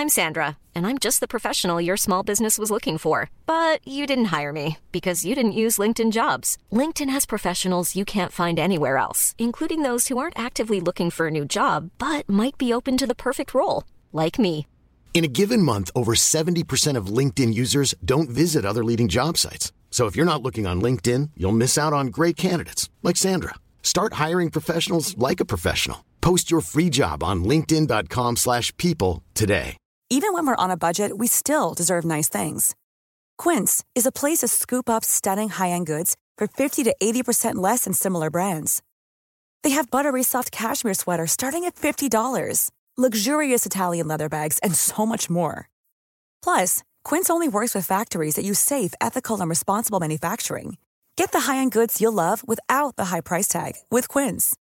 I'm Sandra, and I'm just the professional your small business was looking for. But you didn't hire me because you didn't use LinkedIn jobs. LinkedIn has professionals you can't find anywhere else, including those who aren't actively looking for a new job but might be open to the perfect role, like me. In a given month, over 70% of LinkedIn users don't visit other leading job sites. So if you're not looking on LinkedIn, you'll miss out on great candidates like Sandra. Start hiring professionals like a professional. Post your free job on linkedin.com/people slash people today. Even when we're on a budget, we still deserve nice things. Quince is a place to scoop up stunning high-end goods for 50 to 80% less than similar brands. They have buttery soft cashmere sweaters starting at $50, luxurious Italian leather bags, and so much more. Plus, Quince only works with factories that use safe, ethical, and responsible manufacturing. Get the high-end goods you'll love without the high price tag with Quince.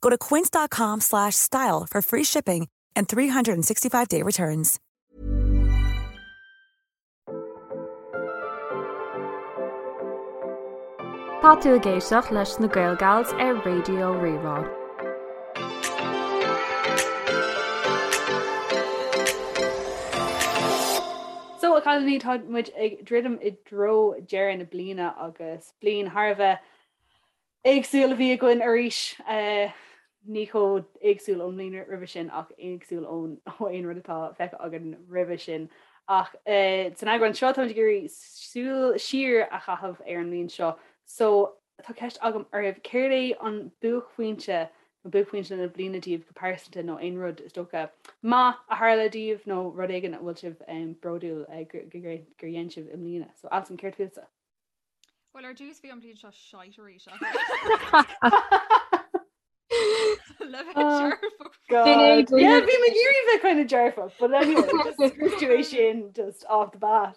Go to quince.com slash style for free shipping and 365-day returns. Tá tú ag éisteacht leis na Gael Gals ar Raidió Rí-Rá. So a chailíní tá muid ag druidim i dtreo deireadh na bliana agus bliain thar a bheith éagsúil a bhí againn arís. Ní chomh éagsúil ón mbliain roimhe sin ach éagsúil ón ó aon rud atá feicthe againn roimhe sin. Ach san eagrán seo táimid ag iarraidh súil siar a chaitheamh ar an mbliain seo. So tá ceist agam oraibh, céard é an buaicphointe nó buaicphointe na bliana daoibh go pearsanta nó aon rud is dócha maith a tharla daoibh nó rud éigin a bhfuil sibh bródúil gur dhein sibh i mbliana. So Alison, céard fútsa? Well ar dtús bhí an bhliain seo shite arís Le bheith dearfach. God. Yeah, bhí mé ag iarraidh bheith kind of dearfach, but anyway, just scrios tú é sin just off the bat.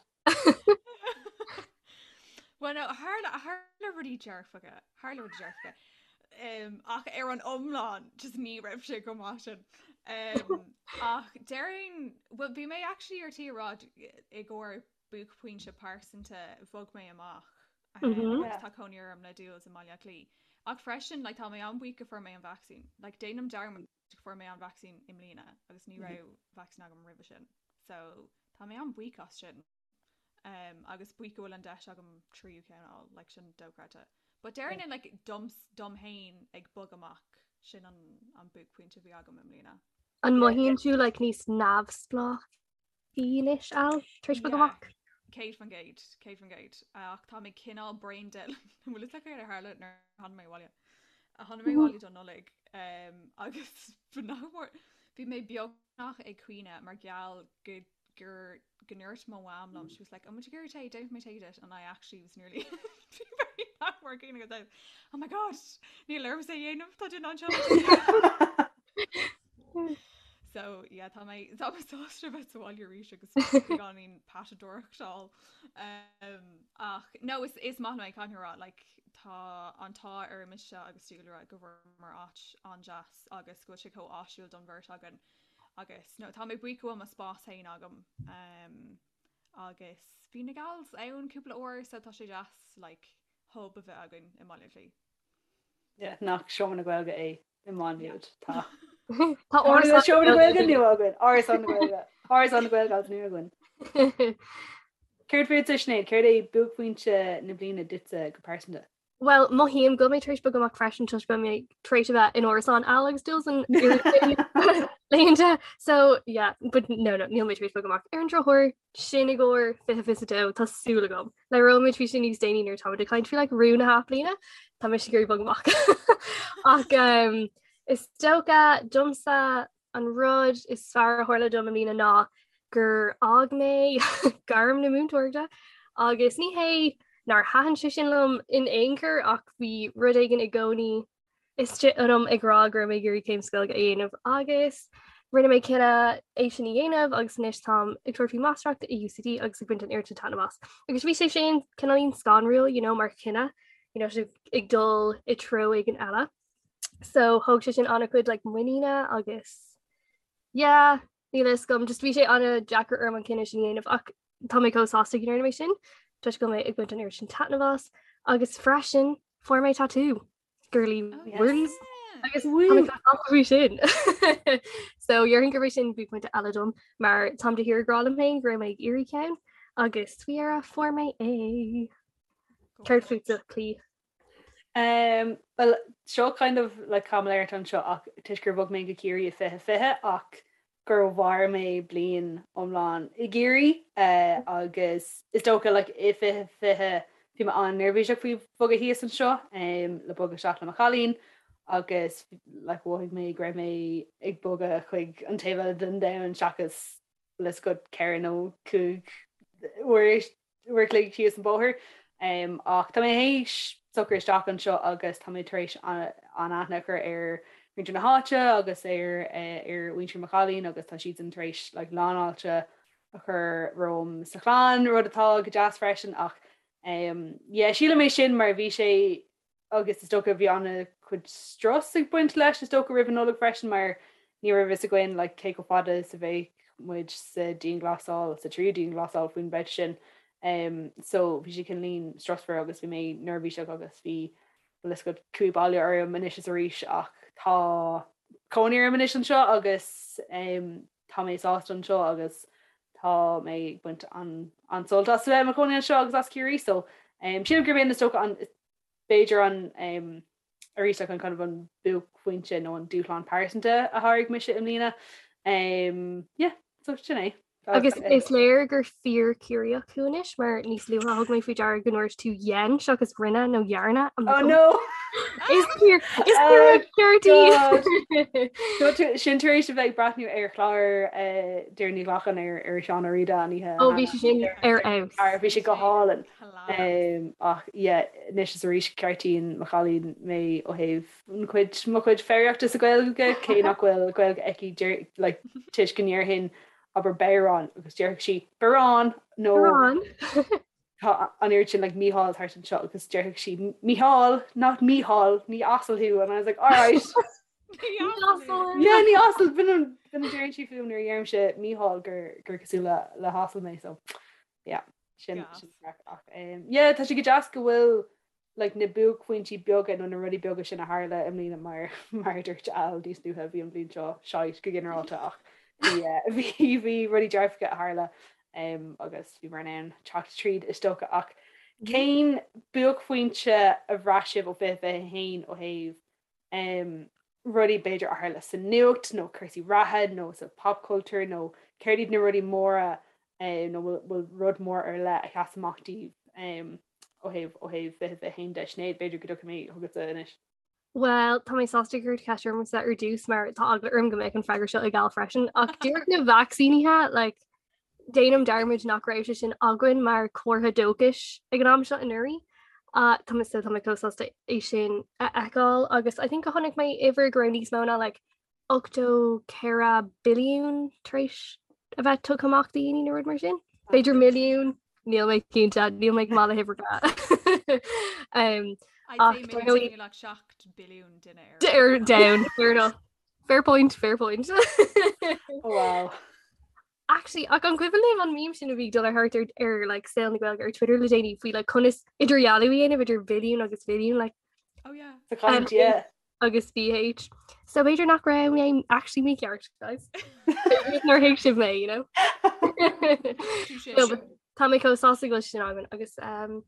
Well no, tharla tharla rudaí dearfacha, tharla rudaí dearfacha. Um, ach ar an iomlán just ní raibh sé go maith sin. Um, ach déarfainn, well bhí mé actually ar tí a rá i gcomhair buaicphointe pearsanta bhog mé amach agus tá cónaí orm le Jules i mBaile Átha Cliath. Ach freisin like, tá mé an-bhuíoch go fuair mé an vacsaín. Like, déanaim dearmad go fuair mé an vacsaín i mbliana agus ní raibh vacsaín agam roimhe sin. So tá mé an-bhuíoch as sin. Um, agus buíoch go bhfuil an deis agam tríú ceann a fháil, like, sin dochreidte. But déarfainn like, dom, dom féin ag bogadh amach sin an, an buaicphointe a bhí agam i mbliana. An mothaíonn tú like, níos neamhspleách anois Al tar éis bogadh amach? 100%, 100%. Ach tá mé cineál brain dead. An bhfuil fhios agat céard a tharla nuair a tháinig mé abhaile? A tháinig mé abhaile don Nollaig um, agus nach mór bhí mé beagnach ag caoineadh mar gheall go gur go ndúirt mo mham liom, she was like, "An bhfuil tú ag iarraidh tae? Déanfaidh mé tae duit." And I actually was nearly nach mór ag caoineadh agus I was, Oh my God, níl ormsa é a dhéanamh, tá duine anseo le tae." So yeah, tá mé tá mé sásta bheith sa bhaile arís agus beagáinín patadóireachtáil. Um, ach no is is maith liom é caithfidh mé a rá like, tá an t-ádh ar mise agus Dúlra go bhfuaireamar áit an-deas agus go bhfuil sé chomh áisiúil don bheirt againn agus no tá mé buíoch go bhfuil mo spás féin agam um, agus bhí na gals ann cúpla uair so tá sé deas like, hub a bheith againn i mBaile Átha Cliath. Yeah, nach Seomra na Gaeilge é i Maigh Nuad. Tá. Tá Árasán Seomra na Gaeilge nua againn. Árasán na Gaeilge. Árasán na Gaeilge agus nua againn. Céard fútsa Sinéad, céard é buaicphointe na bliana duitse go pearsanta? Well, mothaím go bhfuil mé tar éis bogadh amach freisin toisc go bhfuil mé tar éis a bheith in árasán Al agus Jules an laethanta. So yeah, but no, no, níl mé tar éis bogadh amach. Ar an drochuair, sin i gcomhair 2022, tá súil agam. Labhróidh muid faoi sin níos déanaí nuair atá muid ag caint faoi like rún na hathbhliana, tá mise ag iarraidh bogadh amach. Ach um, is dócha domsa an rud is fearr a tharla dom i mbliana ná gur fhág mé gairm na múinteoireachta agus ní hé nár thaitin sé sin liom in aon chor ach bhí rud éigin i gcónaí istigh ionam ag rá go raibh mé ag iarraidh céim sa Ghaeilge a dhéanamh agus rinne mé cinneadh é sin a dhéanamh agus anois táim ag tabhairt faoi máistreacht i UCD agus ag baint an oiread sin taitneamh as. Agus bhí sé sin cineáilín scanrúil you know, mar chinneadh you know, ag dul i treo éigin eile. So thóg sé sin an-chuid like, muiníne agus yeah, níl a fhios agam, just bhí sé an-deacair orm an cinneadh sin a dhéanamh ach tá mé chomh sásta go ndearna mé sin toisc go bhfuil mé ag baint an oiread sin taitneamh as agus freisin fuair mé tatú girly Oh, words. yeah. Agus faoi sin. So déarfainn gurb é sin buaicphointe eile dom mar táim de shíor ag rá liom féin go raibh mé ag iarraidh ceann agus faoi dheireadh fuair mé é. Céard fútsa, Clí? Um, well, seo kind of like caimiléireacht anseo ach toisc gur bhog mé go Ciarraí i 2020 ach gur mhair mé bliain iomlán i gCiarraí uh, agus is dócha like, i 2020 bhí mé an-neirbhíseach faoi bhogadh thíos anseo um, le bogadh isteach le mo chailín agus like, mhothaigh mé go raibh mé ag bogadh chuig an taobh eile den domhan seachas bhfuil a fhios agat 4 nó 5 uair uair a chloig síos an bóthar. Ach tá mé théis socrú isteach anseo agus tá mé tar éis an-aithne a chur ar mhuintir na háite agus ar ar mhuintir mo chailín agus tá siadsan tar éis like lánfháilte a chur romham sa chlann, rud atá go deas freisin ach yeah sílim é sin mar bhí sé agus is dócha bhí an-chuid strus ag baint leis is dócha roimh an Nollaig freisin mar ní raibh fhios againn like cé chomh fada is a bheadh muid sa dianghlasáil, sa tríú dianghlasáil faoin mbabhta sin. Um, so bhí sé cineáilín stressful agus bhí mé neirbhíseach agus bhí bhfuil fhios agat cumha baile orm anois is arís ach tá cónaí orm anois anseo agus um, tá mé sásta anseo agus tá mé ag baint an an-sult as a bheith i mo chónaí anseo agus as Ciarraí so um, sílim gurb in is dócha an b'fhéidir an arís like an kind of an buaicphointe nó an dúshlán pearsanta a sháraigh mise i mbliana. Um, yeah, so sin é. Agus is léir gur fíor Ciarraíoch thú anois mar níos luaithe thug mé faoi deara go ndúirt tú dhein seachas rinne nó dhearna. Oh no! Is fíor is fíor God. Sin tar éis a bheith ag breathnú ar chlár eh, Doireann Ní Ghlacáin ar ar Seán Ó Riada an oíche. Ó bhí sé sin ar fheabhas. Bhí sé go hálainn. Ach yeah, anois is arís ceartaíonn mo chailín mé ó thaobh an chuid, mo chuid foghraíochta sa Ghaeilge, cé nach bhfuil Gaeilge aici deir, like, toisc go ndéarfainn abair bodhrán agus déarfadh sí barán nó Barán. tá an oiread sin like Mícheál thart anseo agus déarfadh sí Mícheál, not Mícheál, ní asal thú and I was like alright. Ní asal. Yeah, ní asal, b'in an, b'in a deireann sí fúm nuair a dheirimse Mícheál gur, gur cosúil le, le hasal mé so yeah. Sin ach yeah tá sé go deas go bhfuil like na buaicphointí beaga nó na rudaí beaga sin a tharla i mbliana mar mar a dúirt Al níos luaithe bhí an bhliain seo shite go ginearálta ach bhí eh, bhí bhí rudaí dearfacha a tharla um, agus bhí mar in ann teacht tríd is dócha ach cén buaicphointe a bhraith sibh ó 2021 ó thaobh rudaí b'fhéidir a tharla sa nuacht nó cúrsaí reatha nó sa pop culture nó céard iad na rudaí móra nó bhfuil rud mór ar leith a sheas amach daoibh ó thaobh ó thaobh 2021 de. Sinéad, b'fhéidir go dtiocfaidh mé chugatsa anois. Bhuel, tá mé sásta gur cuireadh ceist ormsa ar dtús mar tá eagla orm go mbeadh an freagra seo ag Al freisin ach díreach na vacsaínithe like, Déanaim dearmad nach raibh sé sin againn mar comhartha dóchais ag an am seo anuraidh. Tá mé so tá mé chomh sásta é sin a fheiceáil agus I think go chonaic mé uimhir go raibh níos mó ná like 84 billiún tar éis a bheith tugtha amach do dhaoine nó rud mar sin. B'fhéidir milliún, níl mé cinnte, níl mé go maith le huimhreacha. um, I'd say maybe like 7 billiún duine ar domhan, fair enough. Fair point, fair point. Oh, wow. Actually, ach an cuimhin libh an meme sin a bhí ag dul ar thart ar, ar like, saol na Gaeilge ar Twitter le déanaí faoi like, conas idirdhealú a dhéanamh idir billiún agus mhilliún like, Oh yeah. Sa chaint, yeah. agus BH. So b'fhéidir nach raibh mé actually mícheart, guys. Nár thuig sibh mé, you know? No, but Tá mé chomh sásta go bhfuil sin againn agus um,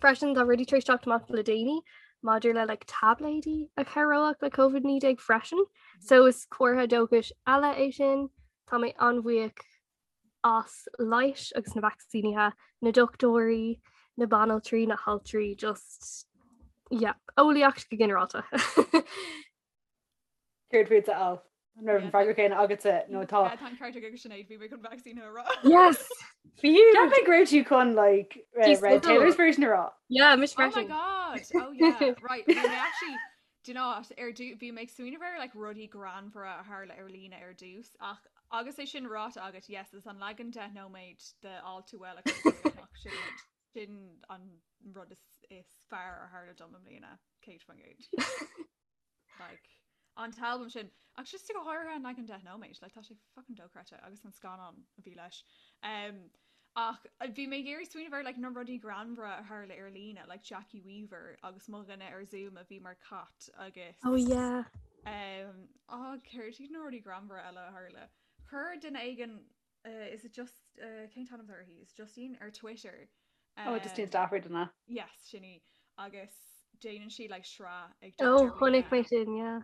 Freisin tá rudaí tar éis teacht amach le déanaí maidir le like, táibléidí a chabhródh le COVID-19 freisin. So is comhartha dóchais eile é sin. Tá mé an-bhuíoch as leighis agus na vacsaínithe, na dochtúirí, na banaltraí, na haltraí, just yeah, eolaíocht go ginearálta. Céard fútsa, Al? An raibh an freagra céanna agatsa nó tá? Tá an ceart ag Sinéad, bhí mé chun vacsaínithe a rá. Yes! Fiú! Cheap mé go raibh tú chun like Red Taylor's version a rá. Yeah, mise freisin. Oh my god! Oh yeah, right. Bhí mé actually, do you know what, ar dtús, bhí mé ag smaoineamh ar like rudaí greannmhara a tharla ar líne ar dtús ach agus é sin ráite agat, yes, is an leagan 10 nóiméad de All Too Well a chuir amach sin sin an rud is is fearr a tharla dom i mbliana, 100%. Like, an t-albam sin, ach just go háirithe an leagan 10 nóiméad, like, tá sé fucking dochreidte agus an scannán a bhí leis. Um, ach bhí mé ag iarraidh smaoineamh ar like, na rudaí greannmhara a tharla ar líne, like Jackie Weaver agus mo dhuine ar Zoom a bhí mar cat agus Oh yeah. Um, á céard iad na rudaí greannmhara eile a tharla? Chuir duine éigin uh, is it just uh, cén t-ainm uirthi? Is Justine ar Twitter. Um, oh, Justine Stafford an ea? Yes, sin í. Agus déanann sí like sraith ag Oh, chonaic mé sin, yeah.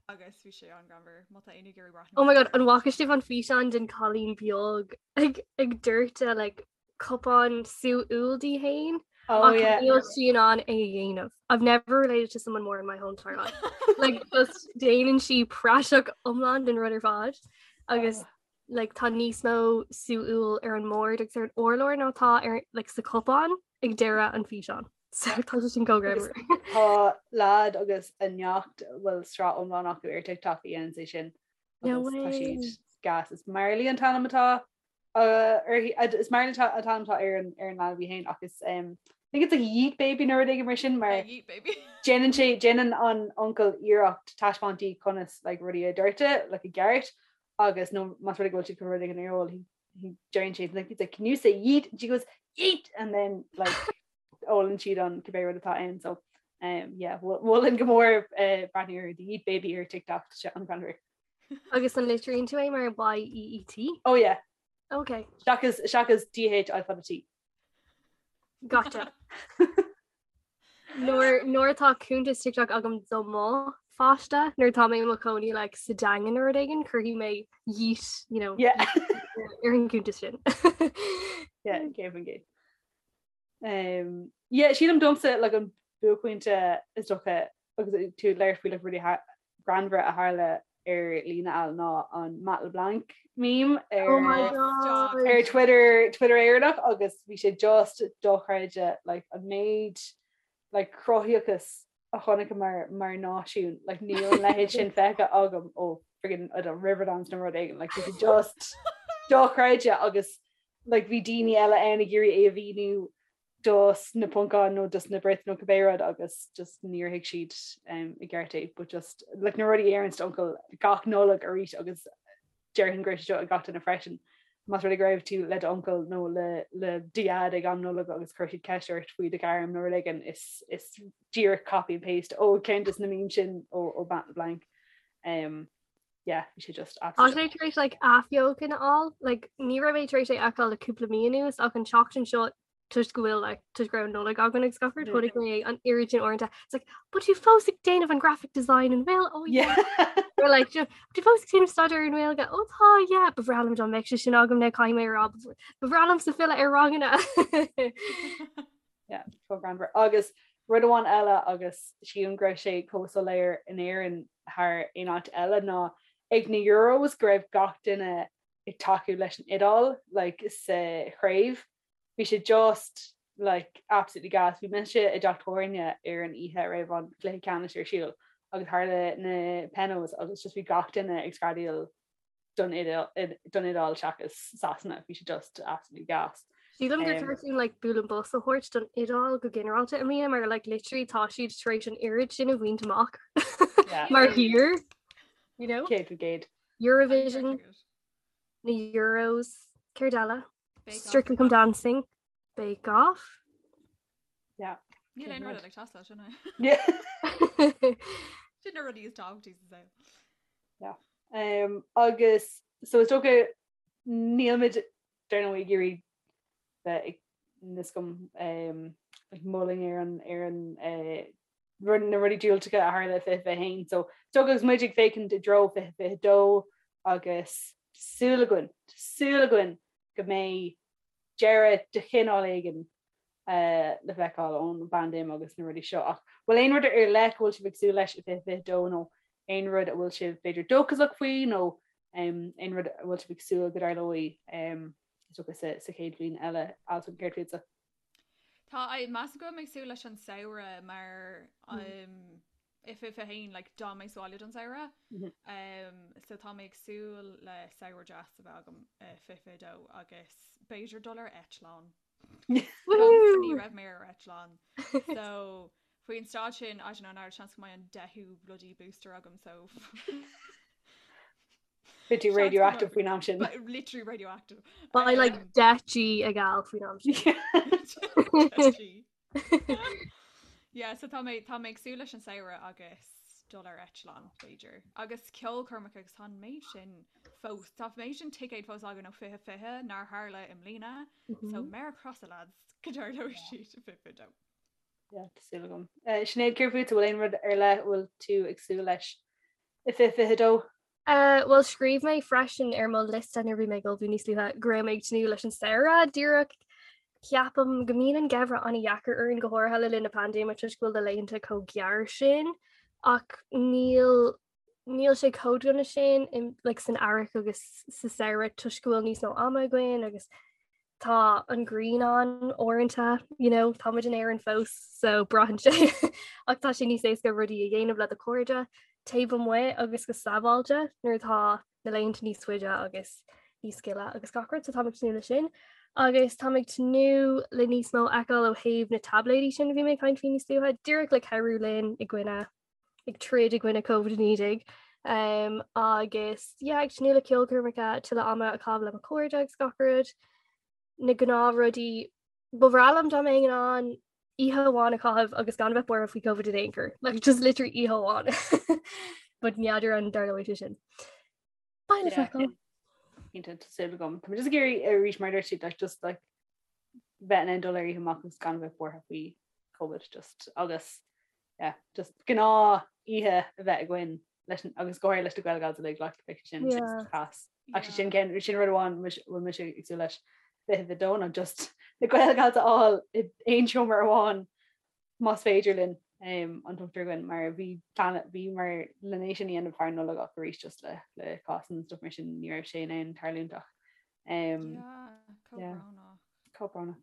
Agus bhí sé an-ghreannmhar má tá éinne ag iarraidh breathnú. Oh my god, an bhfaca sibh an físeán den cailín beag ag ag doirteadh like cupán sú úll di féin? Oh Ach yeah. níl sí in ann é a dhéanamh. I've never related to someone more in my whole entire life. Like just déanann sí praiseach iomlán den rud ar fad agus Oh. like tá níos mó sú úll ar an mbord agus ar an urlár ná tá ar like sa cupán ag deireadh an físeán. So tá sé sin chomh Agus greannmhar. Tá leaid agus a neacht bhfuil sraith iomlán acu ar TikTok a dhéanann é sin No agus tá way. siad gas. Is Marley an t-ainm atá uh, uirthi uh, is Marley an t-ainm atá ar an ar an leanbh í féin ach is um, I think it's like Yeet Baby nó rud éigin mar sin mar Yeah, Yeet baby. déanann sé déanann an uncail iarracht taispeáint di conas like, rudaí a dhoirteadh like, i gceart agus nó más rud é go bhfuil siad chun rud éigin a ól he he déanann sé like, he's like can you say yeet and she goes yeet and then like ólann siad an cibé rud atá ann so um, yeah mholfainn go mór uh, breathnú ar the Yeet Baby ar TikTok tá sé an-ghreannmhar. Agus an litríonn tú é mar Y-E-E-T? Oh yeah. Okay. Seachas seachas D-H I fada T. Gotcha. Nuair nuair atá cuntas TikTok agam do mo pháiste, nuair atá mé i mo chónaí like, sa Daingean nó rud éigin, cuirfidh mé yeet, you know, Yeah. ar an gcuntas sin. Yeah, 100%. Um, yeah, sílim domsa like, an buaicphointe is dócha agus tú ag labhairt faoi like, rudaí greannmhara a tharla ar líne al ná an Matt LeBlanc meme ar, Oh my God. ar Twitter Twitter Éireannach agus bhí sé just dochreidte like, an méid like, cruthaíochas a chonaiceamar mar náisiún like, níl an leithéid sin feicthe agam ó friggin' I don't know, Riverdance nó rud éigin like, bhí sé just dochreidte agus like, bhí daoine eile ann ag iarraidh é a mhíniú dos na Poncáin nó dos na Brits nó cibé rud agus just níor thuig siad um, i gceart é but just like, na rudaí a deireann d'uncail gach Nollaig arís agus déarfainn go raibh sé seo ag gach duine freisin. Más rud é go raibh tú le d'uncail nó le le do dhaid ag am Nollag agus chuir siad ceist ort faoi do ghairm nó rud éigin is is díreach copy and paste ó ceann des na memes sin ó ó Matt LeBlanc. Um, yeah, bhí sé just Tá sé tar éis like athbheochan a fháil, like ní raibh mé tar éis é a fheiceáil le cúpla mí anuas ach an tseachtain seo toisc go bhfuil like toisc go raibh Nollaig againn agus gach rud chonaic mé an oiread sin uaireanta. It's like, but tú fós ag déanamh an graphic design an bhfuil? Oh yeah. Or like you know, tú fós ag déanamh staidéar ar an nGaeilge? Oh tá yeah, ba bhreá liom dá mbeadh sé sin agam now caithfidh mé a rá ba bhreá liomsa filleadh ar ranganna. Yeah, chomh greannmhar. Agus rud amháin eile agus sílim go raibh sé chomh soiléir in Éirinn thar aon áit eile ná ag na Euros go raibh gach duine ag tacú leis an Iodáil like, sa chraobh. Bhí sé just like absolutely gas. Bhí mise i dteach tábhairne ar an oíche a raibh an cluiche ceannais ar siúl agus tharla na penos agus just bhí gach duine ag screadaíl don don Iodáil seachas Sasana. Bhí sé just absolutely gas. Sílim gur cheart dúinn like bualadh bos a thabhairt don Iodáil go ginearálta i mbliana mar like literally tá siad tar éis an oiread sin a bhaint amach mar thír you know? 100%. Eurovision, na Euros, céard eile? Strictly Come Dancing, Bake Off. Yeah. Níl aon rud ag teastáil sin Yeah. Sin na rudaí is tábhachtaí sa saol. Yeah. Um, agus so is dócha nílmid dar ndóigh ag iarraidh bheith ag niscum um, ag moladh ar an ar an uh, rud na rudaí diúltacha a tharla i 2021. So is dócha agus muid ag féachaint i dtreo 2022 agus súil againn, súil againn go mbeidh deireadh de chineál éigin le feiceáil ón bpaindéim agus na rudaí seo. Ach bhfuil aon rud ar leith go bhfuil sibh ag súil leis i 2022 nó aon rud a bhfuil sibh b'fhéidir dóchasach faoi nó aon rud a bhfuil sibh ag súil go dtarlóidh is dócha sa chéad bhliain eile? Alison, céard fútsa? Tá, measaim go bhfuil mé ag súil leis an samhradh mar i 2021 like d'fhan mé sa bhaile don samhradh um, so tá mé ag súil le samhradh deas a bheith agam i 2022 agus b'fhéidir dul ar eitleán. Ní raibh mé ar eitleán. So faoin staid sin I don't know now seans go mbeidh an deichiú bloody booster agam so Beidh tú radioactive faoin am sin. Literally radioactive. Beidh like 10 G ag Al faoin am sin. Yeah, so tá mé tá mé ag súil leis an samhradh agus. dul ar eitleán b'fhéidir. Agus ceolchoirmeacha agus tá an méid sin fós, tá an méid sin ticéad fós againn ó 2020 nár tharla i mbliana, so méar crosa lads go dtarlóidh siad i 2022. Yeah, tá súil agam. Eh, Sinéad, céard fút, bhfuil aon rud ar leith a bhfuil tú ag súil leis i 2022? Eh, bhuel scríobh mé freisin ar mo liosta nuair a bhí mé ag ullmhú níos luaithe go raibh mé ag tnúth leis an samhradh díreach ceapaim go mbíonn an geimhreadh an-dheacair orainn go háirithe le linn na paindéime toisc go bhfuil na laethanta chomh gearr sin ach níl níl sé chomh dona sin in, like, san earrach agus sa samhradh toisc go bhfuil níos mó ama againn agus tá an ghrian ann uaireanta, you know, tá muid in Éirinn fós so braitheann sé ach tá sé níos éasca rudaí a dhéanamh le do chairde taobh amuigh agus go sábháilte nuair atá na laethanta níos faide agus níos gile agus gach rud, so táim ag tnúth leis sin. Agus táim ag tnúth le níos mó a fheiceáil ó thaobh na taibléidí sin a bhí mé ag caint faoi níos luaithe, díreach le cabhrú linn i gcoinne ag troid i gcoinne Covid-19 um, agus yeah, ag tnúth le ceolchoirmeacha tuilleadh ama a chaitheamh le mo chairde agus gach rud. Na gnáthrudaí ba bhreá liom dá mbeinn in ann oíche amháin a chaitheamh agus gan bheith buartha faoi Covid in aon chor. Like, just literally oíche amháin. But n'fheadar an dtarlóidh sé sin. Beidh le feiceáil. Cinnte, tá súil agam. Tá mé just ag iarraidh arís mar dúirt siad like, just like bheith in ann dul ar oíche amach agus gan bheith buartha faoi Covid just agus yeah, just gnáth oíche a bheith againn leis an- agus go háirithe leis na Gaelgals uilig like beidh sé sin Yeah. class. Actually sin cén sin rud amháin bhfuil mise ag súil leis 22 ná just na Gaelgals a fháil i aon seomra amháin más féidir linn an t-ochtar againn mar bhí plean bhí mar le é sin a dhéanamh thar Nollaig ach arís just le le cásanna and stuff mar sin ní raibh sé in ann tarlúint ach um, yeah, chomh brónach.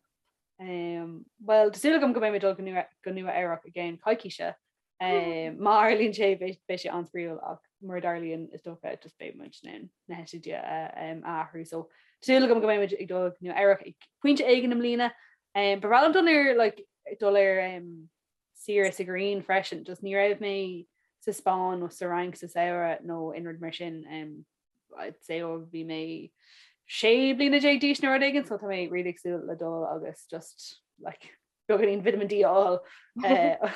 Um, well, tá súil agam go mbeidh mé dul go Nua go Nua Eabhrac i gceann coicíse. Um, má tharlaíonn sé beidh beidh sé an-spraíúil ach mura dtarlaíonn is dócha just beidh muid in ann na heitiltí a um, a athrú. So tá súil agam go mbeidh muid ag dul go Nua Eabhrac ag pointe éigin i mbliana. Um, ba bhreá liom dul ar like, dul ar um, saoire sa ghrian freisin, just ní raibh mé sa Spáinn nó sa Fhrainc sa samhradh nó aon rud mar sin. Um, I'd say ó bhí mé sé bliana déag d'aois nó rud éigin, so tá mé really ag súil le dul agus just like, beagáinín vitamin D a fháil uh,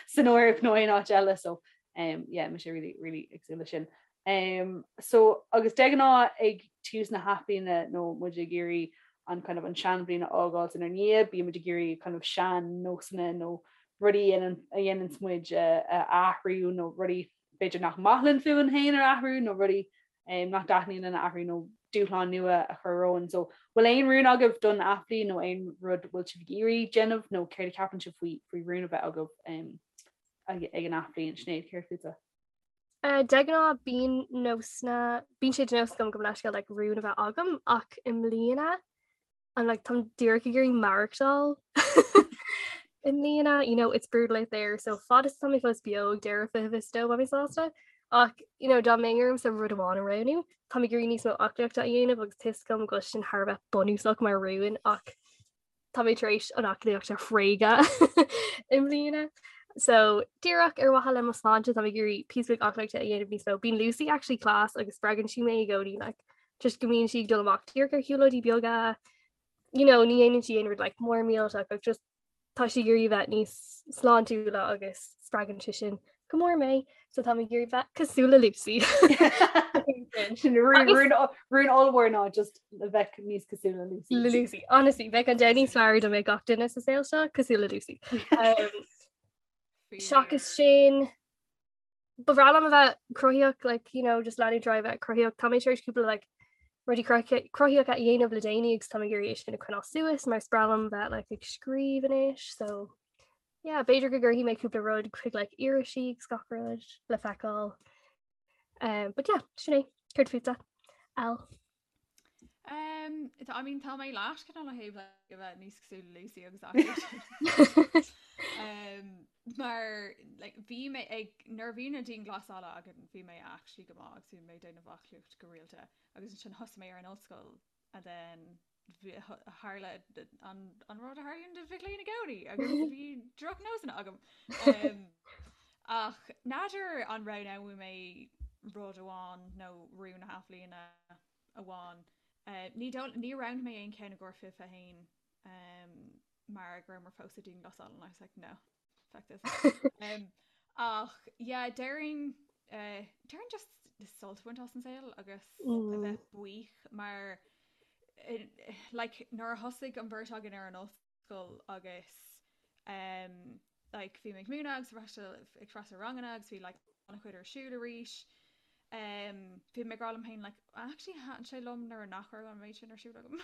san Eoraip nó aon áit eile so um, yeah, mise really, really ag súil le sin. Um, so agus de ghnáth ag tús na hathbhliana nó muid ag iarraidh an kind of an seanbhliain a fhágáil inár ndiaidh, bíonn muid ag iarraidh kind of sean-nósanna nó rudaí a dhéananns muid a athrú nó rudaí b'fhéidir nach maith linn fúinn féin a athrú nó rudaí um, nach dtaitníonn linn a athrú nó dúshlán nua a chur romhainn. So bhfuil aon rún agaibh don athbhliain nó aon rud bhfuil sibh ag iarraidh déanamh nó céard a cheapann sibh faoi faoi rún a bheith agaibh um, ag, ag an athbhliain Sinéad céard fútsa? Uh, de ghnáth bíonn nósanna bíonn sé de nós agam gabh mo leithscéal like, rún a bheith agam ach i mbliana I'm like táim díreach ag iarraidh maireachtáil i mbliana you know it's brutal out there so fad is tá mé fós beo ag deireadh 2022 beidh mé sásta ach you know dá mbeinn ormsa rud amháin a roghnú táim ag iarraidh níos mó aclaíochta a dhéanamh agus tá a fhios agam go bhfuil sin thar a bheith bunúsach mar rún ach Tá mé tar éis an aclaíocht a thréigean i mbliana. So díreach ar mhaithe le mo sláinte tá mé ag iarraidh píosa beag aclaíochta a dhéanamh níos mó. Bíonn Lucy actually class agus spreagann sí mé i gcónaí like, just go mbíonn sí ag dul amach díreach ar shiúlóidí beaga. You know, ní dhéanann sí aon rud like, mór millteach ach just tá sí ag iarraidh bheith níos sláintiúla agus spreagann sé sin go mór mé, so tá mé ag iarraidh bheith cosúil le Lucy. Sin rún ollmhór ná just a bheith níos cosúil le Lucy. Le Lucy. Honestly, bheadh an domhan níos fearr dá mbeadh gach duine sa saol seo cosúil le Lucy. Um, seachas sin ba bhreá liom a bheith cruthaíoch like, you know, just leanúint ar aghaidh bheith cruthaíoch. Tá mé tar éis cúpla like, rudaí cruthaíocha a dhéanamh le déanaí agus tá mé ag iarraidh é sin a choinneáil suas mar is breá liom bheith like, ag scríobh anois so yeah, b'fhéidir go gcuirfidh mé cúpla rud chuig like irisí agus gach rud le feiceáil. Um, but yeah, sin é, céard fútsa? Al. Um, I mean tá mé leat cineál ó thaobh like, a bheith níos cosúil le Lucy agus aclaíocht. um, mar like, bhí mé ag nuair a bhí na dianghlasála againn bhí mé actually go maith agus bhí mé ag déanamh aclaíocht go rialta agus ansin thosaigh mé ar an ollscoil and then tharla an rud a tharlaíonn do mhic léinn i gcónaí agus bhí drochnósanna agam. Um, ach n'fheadar an roghnóidh mé rud amháin nó rún na hathbhliana amháin. Uh, ní ní roghnaigh mé aon cheann i gcomhair 21 um, mar go rabhamar fós sa dianghlasáil and I was like no, fuck this. Um, Ach yeah, déarfainn eh, déarfainn just sult a bhaint as an saol agus a mm. bheith buíoch mar eh, like, nuair a thosaigh an bheirt againn ar an ollscoil agus um, like, bhí mé ag múineadh agus freastal ag freastal ranganna agus bhí like, an-chuid ar siúl arís. Um, bhí mé ag rá liom féin like, actually thaitin sé liom nuair nach raibh an méid sin ar siúl agam.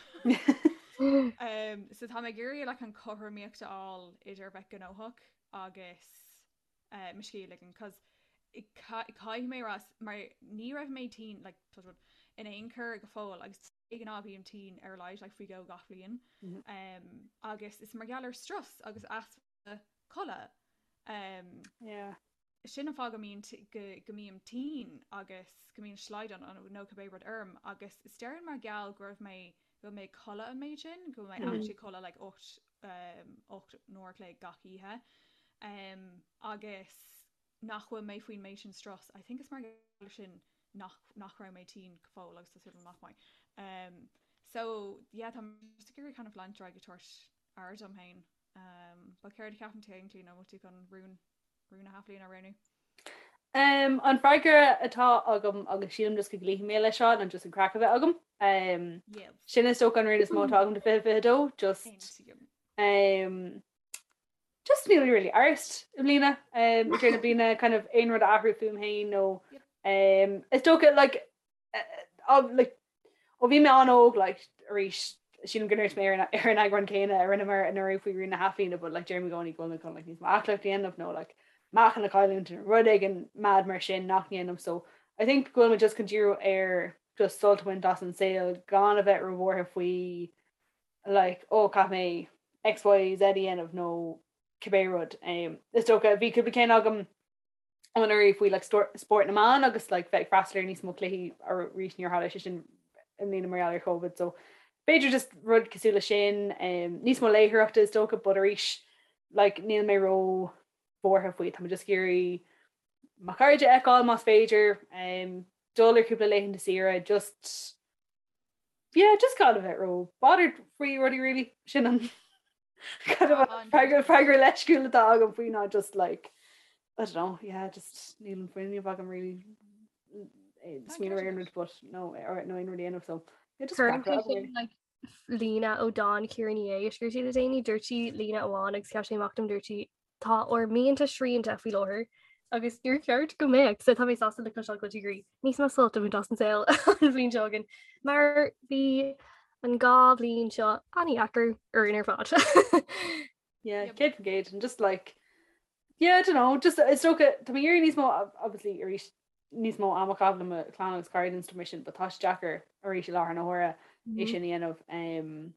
um, so tá mé ag iarraidh like, an chothromaíocht a fháil idir bheith gnóthach agus uh, mo scíth a ligean cos caithfidh mé rá mar ní raibh mé tinn like, touch wood, in aon chor go fóill agus de ghnáth bím tinn ar a laghad like, faoi dhó gach bliain mm -hmm. um, agus is mar gheall ar strus agus easpa codladh um, yeah. sin an fáth go mbíonn go, go mbím tinn agus go mbíonn slaghdán nó cibé rud orm agus is déarfainn mar gheall go raibh mé go bhfuil mé ag codladh an méid sin go bhfuil mé mm -hmm. actually codladh like 8 um, 8 n-uair a chloig gach oíche um, agus nach bhfuil mé faoin méid sin strus. I think is mar gheall sin nach, nach raibh mé tinn go fóill agus tá súil agam nach mbeidh. Um, so yeah, tá just ag iarraidh kind of leanúint ar aghaidh ag tabhairt aire dom féin. Um, but céard a cheapann tú féin Clíona, an bhfuil tú chun rún rún na hathbhliana a roghnú? Um, an freagra atá agam agus sílim just go gcloífidh mé leis seo ná just an craic a bheith agam. Um, Yes. sin is dócha an rún is mó atá agam do 2022 just um, just níl really arst i mbliana um, i deireadh na bliana kind of aon rud a athrú fúm féin nó Yep. um, is dócha like uh, like ó bhí mé an-óg like arís sílim go ndúirt mé ar an ar an eagrán céanna a rinneamar anuraidh faoi rún na hathbhliana but like deirim i gcónaí go bhfuil mé chun like níos mó aclaíocht a dhéanamh nó like meáchan a chailliúint nó rud éigin mad mar sin nach ndéanaim so I think go bhfuil mé just chun díriú ar just sult a bhaint as an saol gan a bheith róbhuartha faoi like oh caithfidh mé X Y Z a dhéanamh nó cibé rud. Um, is dócha bhí cúpla ceann agam anuraidh faoi like spórt na mban agus like bheith ag freastal ar níos mó cluichí arís níor tharla sé sin i mbliana mar gheall ar Covid so b'fhéidir just rud cosúil le sin um, níos mó léitheoireachta is dócha but arís like níl mé ró bhuartha faoi tá mé just ag iarraidh mo chairde a fheiceáil más féidir um, dul ar cúpla laethanta saoire just yeah just gan a bheith ró bothered faoi rudaí really sin an kind of an freagra freagra leisciúil atá agam faoi ná just like I don't know yeah just níl an fuinneamh agam really eh, smaoineamh ar aon rud but no or no aon rud a dhéanamh so yeah just Cuireann freagra sé agam sin really. like líne ó dán Ciara Ní É a scríobh sí le déanaí dúirt sí líne amháin agus cheap sé amach dom dúirt sí Tá ár mianta srianta faoi láthair agus níor cheart go mbeadh, so tá mé sásta le cloisteáil go bhfuil tú ag iarraidh níos mó sult a bhaint as an saol an bhliain seo chugainn, mar bhí an dá bhliain seo an-deacair orainn ar fad. Yeah, 100% and just like yeah, I don't know, just is dócha tá mé ag iarraidh níos mó obviously arís níos mó ama a chaitheamh le mo chlann agus cairde and stuff mar sin, but tá sé deacair arís i láthair na huaire é sin a dhéanamh. Um,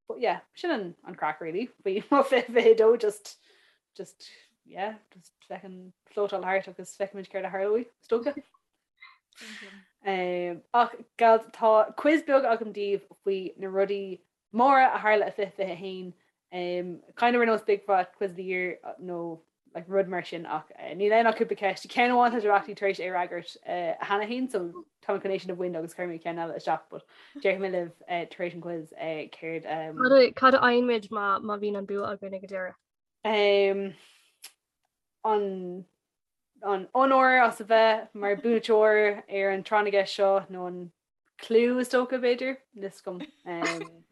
But yeah, sin an, an craic really. Faoi mo 2022 just, just, yeah, just feckin floatáil thart agus feicfimid céard a tharlóidh, is dócha. Um, ach gals tá quiz beag agam daoibh faoi na rudaí móra a tharla i 2021. Um, kind of ar nós Big Fat Quiz of the Year uh, nó like rud mar sin ach eh, níl ann ach cúpla ceist. Ceann amháin tá sibh actually tar éis é a fhreagairt eh, cheana féin so tá mé chun é sin a bhaint agus cuirfidh mé ceann eile isteach but déarfaidh mé libh eh, tar éis an quiz eh, céard um, Cad a- Cad a fhaigheann muid má má bhíonn an bua againn ag an deireadh? um, an an onóir as a bheith mar buaiteoir ar an tráth na gceist seo nó an clú is dócha b'fhéidir níl 'fhios agam. Um,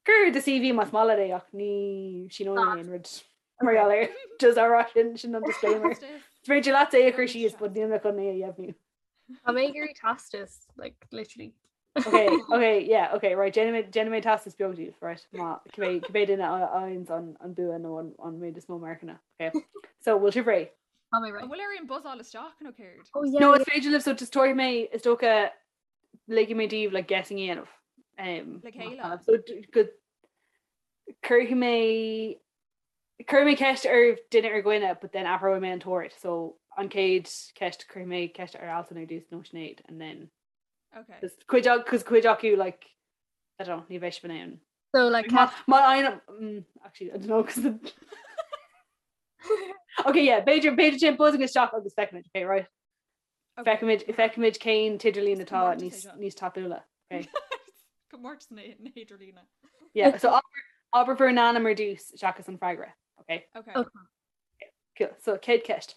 Cuir do CV más maith leat é ach ní síneoidh mé aon rud mar gheall air. Just á rá sin sin an disclaimer. Is féidir leat é a chur síos but níl mé chun é a dheimhniú. Tá mé ag iarraidh teastas, like, literally. Okay, okay, yeah, okay, right, déanfaidh mé déanfaidh mé teastas beag daoibh, right, má cibé cibé duine a fhaigheanns an an bua nó an an méid is mó marcanna, okay. So, bhfuil sibh réidh? Tá mé réidh. An bhfuil orainn buzzáil isteach nó céard? Oh yeah. No, is féidir libh so just tabharfaidh mé is dócha ligfidh mé daoibh like guessing a dhéanamh. Um, Le chéile. So go cuirfidh mé cuirfidh mé ceist ar duine ar dhuine but then athróidh mé an t-ord. So an chéad ceist cuirfidh mé ceist ar Alison ar dtús nó Sinéad and then Okay. Just cuid cos cuid acu like I don't know, ní bheidh sibh in ann. So like Má má fhaigheann mm, actually I don't know cos the Okay, yeah, b'fhéidir b'fhéidir sin buzzing isteach agus feicfimid, okay, right? Okay. Feicfimid feicfimid cén t-idirlíon atá Comórtas é níos seo. níos tapúla. Okay. Comórtas na na hidirlíne. Yeah, so abair abair bhur n-ainm ar dtús seachas an freagra. Okay. Okay. Okay. Cool. So céad ceist.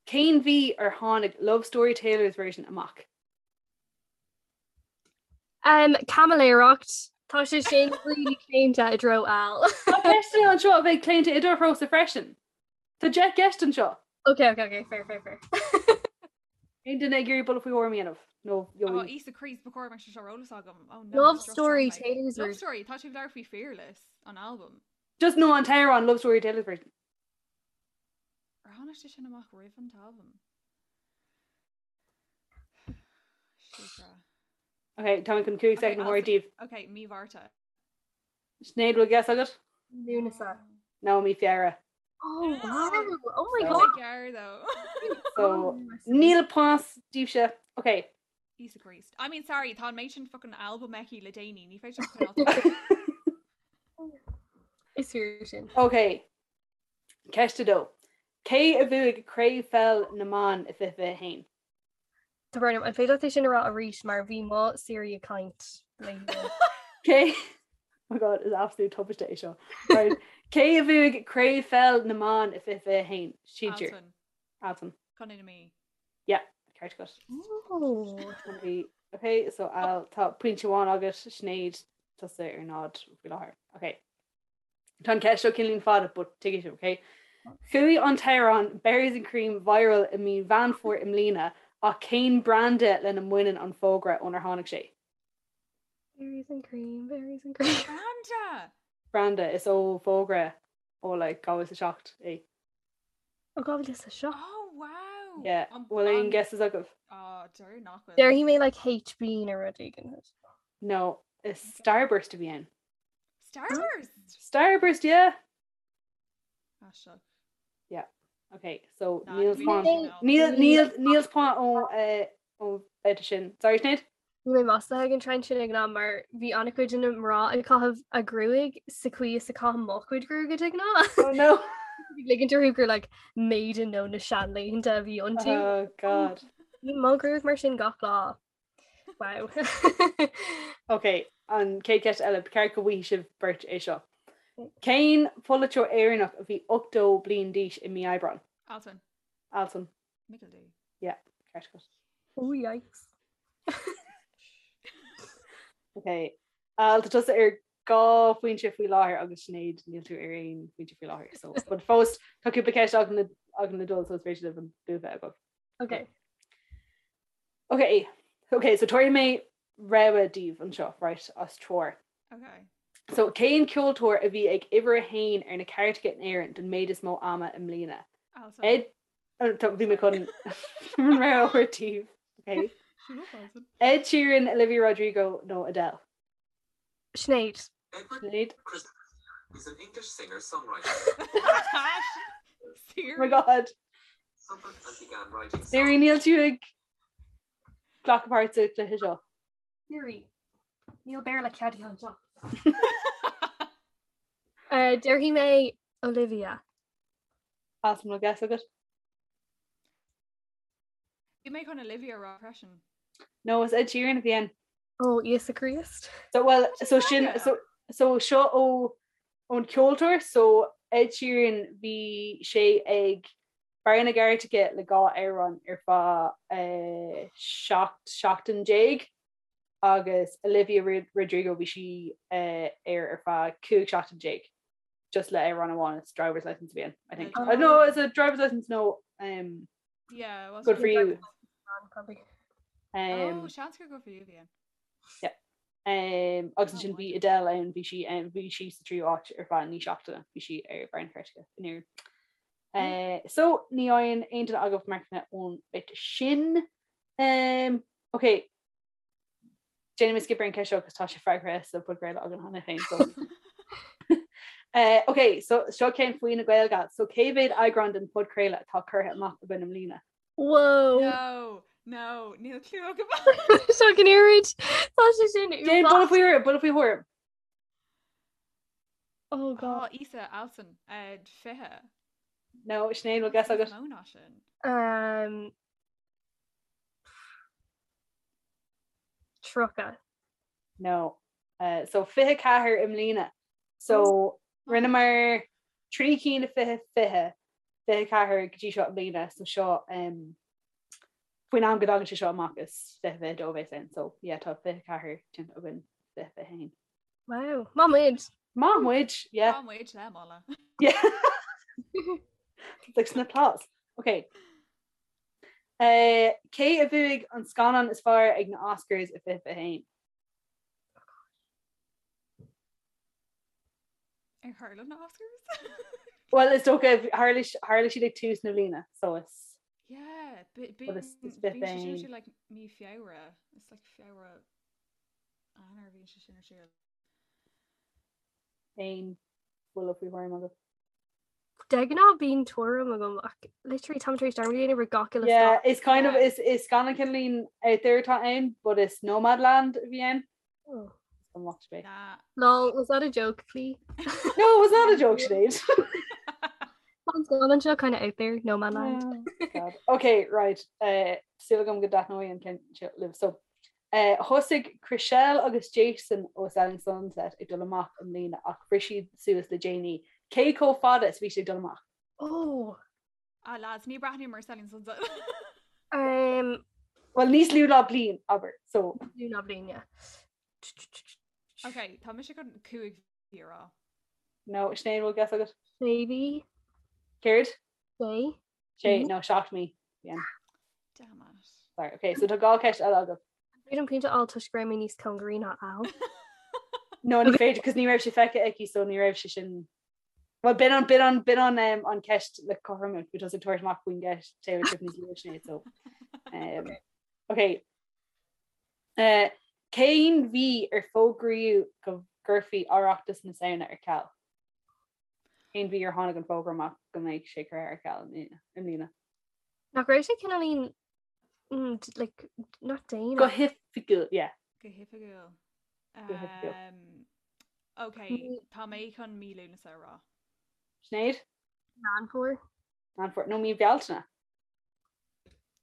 Cén mhí ar tháinig Love Story Taylor's Version amach? Um, caimiléireacht. Tá sé sin really claonta i dtreo Al. Tá ceisteanna anseo a bheidh claonta i do threosa freisin. Tá 10 gceist anseo. Ok, ok, ok, fair, fair, fair. Aon duine ag iarraidh buille faoi thuairim a dhéanamh? Nó Oh, Íosa Críost, ba chóir mar seo ar eolas agam. Oh no. Love Story Taylor's Love Story, tá tú ag labhairt faoi Fearless, an album. Just nó an t-amhrán Love Story Taylor's Version. Ar tháinig sé sin amach roimh an t-albam? Ok, tá mé chun 5 soicind a thabhairt daoibh. Ok, mí Mhárta. Sinéad, bhfuil guess agat? Lúnasa. No, mí Feabhra. Oh wow! Oh my god! Gearr though. So, níl pointe daoibhse. Ok. Íosa Críost. I mean, sorry, tá an méid sin fucking albam aici le déanaí, ní féidir coinneáil. Is fíor sin. Ok. Ceist 2. Cé a bhuaigh Craobh Pheil na mBan i 2021? Tá brón orm, an féidir leat é sin a rá arís mar bhí mo Siri ag caint léi. Cé Oh my god, is absolute tubaiste é seo. Right. Cé a bhuaigh Craobh Pheil na mBan i 2021? Sinsir. Altan. Altan. Contae na Mí. Yeah, ceart agat. Oh. Bhí Ok, so Al, tá pointe amháin agat, Sinéad, tusa ar náid faoi láthair. Ok. Tá an ceist seo cineáilín fada but tuigfidh sibh, ok? Chuaigh an t-amhrán Berries and Cream viral i mí Mheán Fómhair i mbliana ach cén branda lena mbaineann an fógra ónar tháinig sé? Berries and cream, berries and cream. Branda! Branda, is ó fógra ó like 2007 é. Ó 2007? Oh wow! Yeah, bhfuil aon guesses agaibh? Oh, deir nach bhfuil. Déarfaidh mé like HB nó rud éigin. No, is Starburst a bhí ann. Starburst? Starburst, yeah. Aisteach. Yeah. Okay, so Nah, níl bhí point mé níl níl níl point ó eh, ó bheirt sin. Sorry Sinéad? Bhí mé maslaithe ag an trend sin ag an am mar bhí an-chuid de na mná ag caitheamh a gruaig sa chaoi is a caithim mo chuid gruaige de ghnáth. Oh no. Bhí ligint orthu gur like maiden nó na seanlaethanta a bhí iontu. Oh god. Bhí mo ghruaig mar sin gach lá. Wow. Ok, an chéad cheist eile, ba cheart go bhfaighidh sibh beirt é seo. Cén polaiteoir Éireannach a bhí 80 bliain d'aois i mí Aibreáin? Altan. Altan. Michael D. Yeah, ceart agat. Oh yikes. Ok, Al, tá tusa ar dhá phointe faoi láthair agus Sinéad níl tú ar aon phointe faoi láthair. So, but fós tá cúpla ceist againn againn le dul so is féidir libh an bua bheith agaibh. Ok. Ok, ok, so tabharfaidh mé rogha daoibh anseo, right, as treoir. Ok. So cén ceoltóir a bhí ag uimhir a haon ar na cairteacha in Éirinn don méid is mó ama i mbliana? Altan. Ed, oh, tá- bhí mé chun an rogha a thabhairt daoibh. Ok. Shut up, Altan. Ed Sheeran, Olivia Rodrigo nó Adele? Sinéad. Sinéad. Is an English singer-songwriter. Oh my God. Siri, níl tú ag glacadh páirt sa chluiche seo. Siri, níl Béarla ceadaithe anseo. Uh, Déarfaidh mé Olivia. Altan, bhfuil guess agat? Bhí mé chun Olivia a rá freisin. No, is Ed Sheeran a bhí ann. Ó, Íosa Críost. So, well, so sin, so, so seo ó ón ceoltóir, so Ed Sheeran bhí sé ag barr na gcairteacha le dhá amhrán ar feadh eh, 17 seachtain agus Olivia Rodrigo bhí sí eh, ar ar feadh 15 seachtain just le amhrán amháin it's driver's license a bhí ann, I think. Oh. No, it's a driver's license no um, Yeah, well, good for you. Probably. Um, oh, seans gur good for you bhí ann. Um, agus ansin bhí Adele ann bhí sí um, bhí sí sa tríú áit ar feadh naoi seachtaine bhí sí ar barr na cairteacha in Éirinn. Uh, so ní fhaigheann aon duine agaibh marcanna ón bit sin. Um, ok, Déanfaidh mé skip ar an ceist seo agus tá sé freagraithe sa podchraoladh againn cheana féin. So. uh, ok, so seo ceann faoi na Gaeilge. So cé mhéad eagrán den podchraoladh atá curtha amach againn i mbliana? Whoa. No, no, níl clue agam. Seo an oiread. Tá sé sin Déan buille faoi thuairim, buille faoi thuairim. Oh God. Oh, Íosa Altan, uh, 20. No, Sinéad, bhfuil guess agat? Mó ná sin. Um, 30. No. Uh, so 24 i mbliana. So rinneamar trí cinn i 2020. 24 go dtí seo i mbliana so seo um, faoin am go dtagann sé seo amach is 2022 a bheas ann so yeah tá 24 déanta againn 2021. Wow, Maith muid. Maith muid, yeah. Maith muid le moladh. Yeah. Like sna applause. Okay. Uh, cé a bhuaigh an scannán is fearr ag na Oscars i 2021? Ar tharla na Oscars? Well is dócha tharla tharla siad ag tús na bliana so is Yeah, Well, is- is bit bíonn féin. like mí Feabhra It's like Feabhra Eanáir bhíonn sé sin ar siúl. Aon bhuille faoi thuairim agat. De ghnáth bíonn tuairim agam ach literally táim tar éis dearmad a dhéanamh ar gach uile Yeah, scannán. is kind of Yeah. is is scannán cineáilín out there atá ann, but is Nomadland a bhí ann. Oh. An lucht spé. Nah. Lol, was that a joke, Clí? No, it was not a joke, Sinéad. An scannán seo kind of out there, Nomadland. Oh, God. Okay, right. Uh, Súil agam go dtaitneoidh an ceann seo libh. So, uh, thosaigh Chrishell agus Jason ó Selling Sunset ag dul amach i mbliana ach bhris siad suas le déanaí. Cé chomh fada is bhí siad ag dul amach? Oh, Ah lads, ní breathnaím ar Selling Sunset. um, Well, níos lú ná bliain, abair. So, lú ná bliain, yeah. Ok, tá mise chun 5 mhí a rá. no, Sinéad, bhfuil guess agat? Sé mhí, Céard? sé. Sé, Mhm. no, 7 mí. Yeah. Damn it. Sorry. Okay, so tá dhá ceist eile agat. Bhí an pointe á toisc go raibh mé níos cóngaraí ná Al. No, ní féidir, cos ní raibh sé feicthe aici, so ní raibh sé sin Well, b'in an, b'in an, b'in an, um, an ceist le cothrom, bhí tusa ag tabhairt amach faoin gceist Taylor Swift níos luaithe Sinéad, so. Um, okay. Uh, cén mhí ar fógraíodh go gcuirfí Oireachtas na Samhna ar ceal? Cén mhí ar tháinig an fógra amach go mbeidh sé curtha ar ceal i mbliana? Nach raibh sé cineáilín mm, like, not déanach. Go hoifigiúil, yeah. Go hoifigiúil. Go hoifigiúil. Um, ok, tá mé chun mí Lúnasa a rá. Sinéad? Meán Fómhair. Meán Fómhair. No, mí Bealtaine.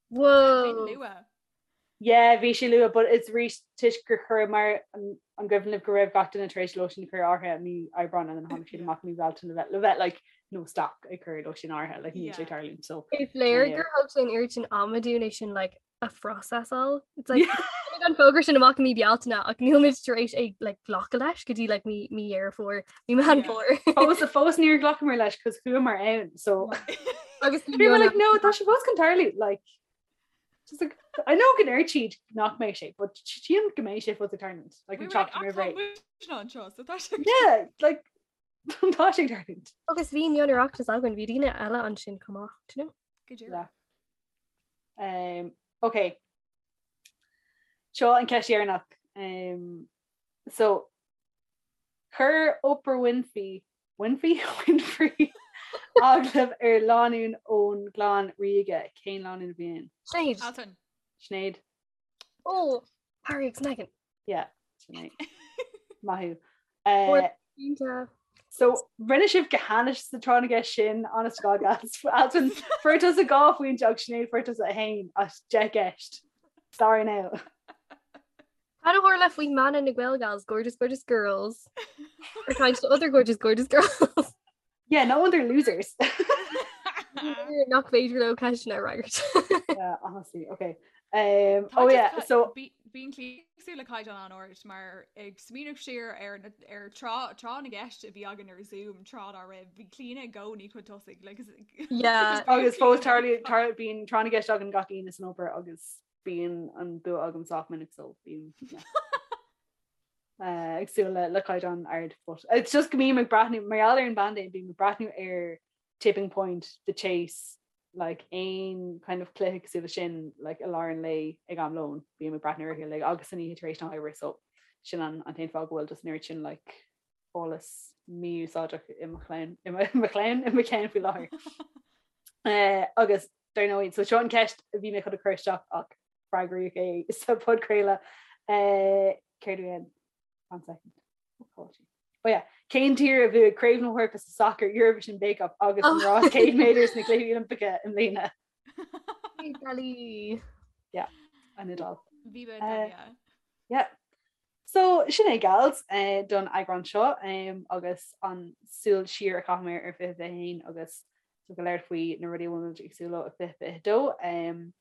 Whoa! Bhí luath. Yeah, bhí sé luath, but it's arís toisc gur chuir mar an an gcuimhin libh go raibh gach duine tar éis lóistín a chur in áirithe i mí Aibreáin and then tháinig siad amach i mí Bealtaine le bheith le bheith like no stop ag cur lóistín in áirithe like níl sé Yeah. tarlúint so Is léir Yeah. gur thóg sé an oiread sin ama dúinn é sin like a phróiseáil. It's like tháinig an fógra sin amach i mí Bealtaine ach níl muid tar éis é like glacadh leis go dtí like mí mí Dheireadh Fómhair, mí Meán Yeah. Fómhair. Fós fós níor ghlacamar leis cos chuamar ann so Agus bhí like no tá sé fós chun tarlú like just like I know go ndeireann siad nach mbeidh sé but sílim go mbeidh sé fós ag tarlúint like an seachtain roimh ré. anseo so tá sé Yeah like tá sé ag tarlúint. Agus bhí an Oireachtas againn, bhí daoine eile ansin chomh maith, do you know? Go díreach. Yeah. Um, okay. Seo an ceist dheireanach. Um, so chuir Oprah Winfrey Winfrey? Winfrey agallamh ar lánúin ón gclann ríoga. Cén lánúin a bhí ann? Sinéad. Altan. Sinéad. Oh, Harry agus Meghan. Yeah, Sinéad. Maith thú. Or- Uh, Iontach. So rinne sibh go hainnis sa tráth na gceist sin honest to God gals. Altan fuair tusa dhá phointe agus Sinéad fuair tusa a haon as deich gceist. Sorry now. Cad a tharla faoi mana na Gaelgals, gorgeous, gorgeous girls. Or kind to other gorgeous, gorgeous girls. Yeah, no wonder losers. Nach féidir leo ceisteanna a fhreagairt. Yeah, honestly, okay. Um, oh yeah, so Bíonn cíosú le caighdeán an-ard mar ag smaoineamh siar ar ar tráth tráth na gceist a bhí againn ar Zoom tráth dá raibh bhí Clíona i gcónaí chun tosaigh like, Yeah. agus fós tarlaíonn tar bíonn tráth na gceist againn gach Aoine san obair agus bíonn an bua agam sách minic so bím yeah. uh, ag súil le le caighdeán ard but it's just go mbím ag breathnú mar gheall ar an bpaindéim bím ag breathnú ar Tipping Point, The Chase, like aon kind of cluiche cosúil leis sin like i lár an lae ag am lóin bím ag breathnú orthu like agus san oíche tar éis na hoibre so sin an an t-aon fáth go bhfuil just an oiread sin like eolas mí-úsáideach i mo chlann i mo i mo chlann i mo cheann faoi láthair. Uh, agus dar ndóigh, so seo an ceist a bhí mé chun a chur isteach ach freagraíodh é sa podchraoladh. Uh, céard a bhí ann? One second. Oh, oh yeah. Cén tír a bhuaigh Craobh na hEorpa sa sacar Eurovision Bake Off agus an oh. rás 100 méadar sna Cluichí Oilimpeacha i mbliana? Italy. Yeah, an Iodáil. Viva Uh, Italia. Yeah. So sin é gals eh, don eagrán seo um, agus an súil siar a chaitheamar ar 2021 agus So ag labhairt faoi na rudaí a bhfuil muid ag súil leo i 2022.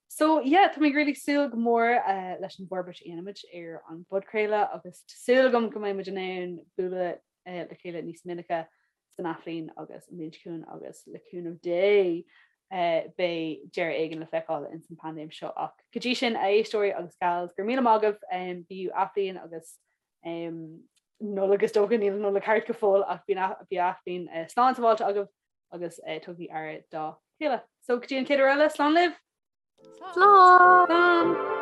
So yeah, tá mé really ag súil go mór uh, leis an bhforbairt a dhéanfaimid ar an bpodchraoladh agus tá súil agam go mbeidh muid in ann bualadh uh, le chéile níos minice san athbhliain agus an bhliain seo chugainn agus le cúnamh Dé uh, beidh deireadh éigin le feiceáil ins an paindéim seo ach go dtí sin a éisteoirí agus gals go raibh míle maith agaibh um, bíodh athbhliain agus um, Nollaig is dócha níl an Nollaig thart go fóill ach bíodh athbhliain uh, slán sábháilte agaibh agus uh, tugaigí aire dá chéile. So go dtí an chéad uair eile slán libh! Slán! Slán!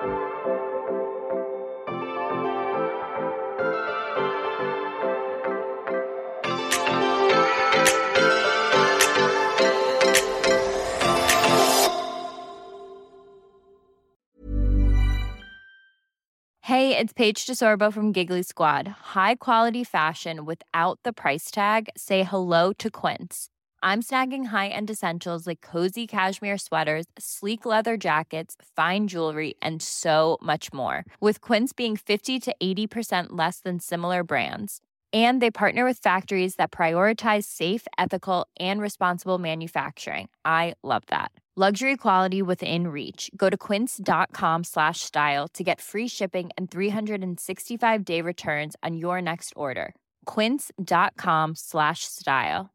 Hey, it's Paige DeSorbo from Giggly Squad. High quality fashion without the price tag. Say hello to Quince. I'm snagging high-end essentials like cozy cashmere sweaters, sleek leather jackets, fine jewelry, and so much more. With Quince being 50 to 80% less than similar brands. And they partner with factories that prioritize safe, ethical, and responsible manufacturing. I love that. Luxury quality within reach. Go to quince.com slash style to get free shipping and 365 day returns on your next order. Quince.com slash style.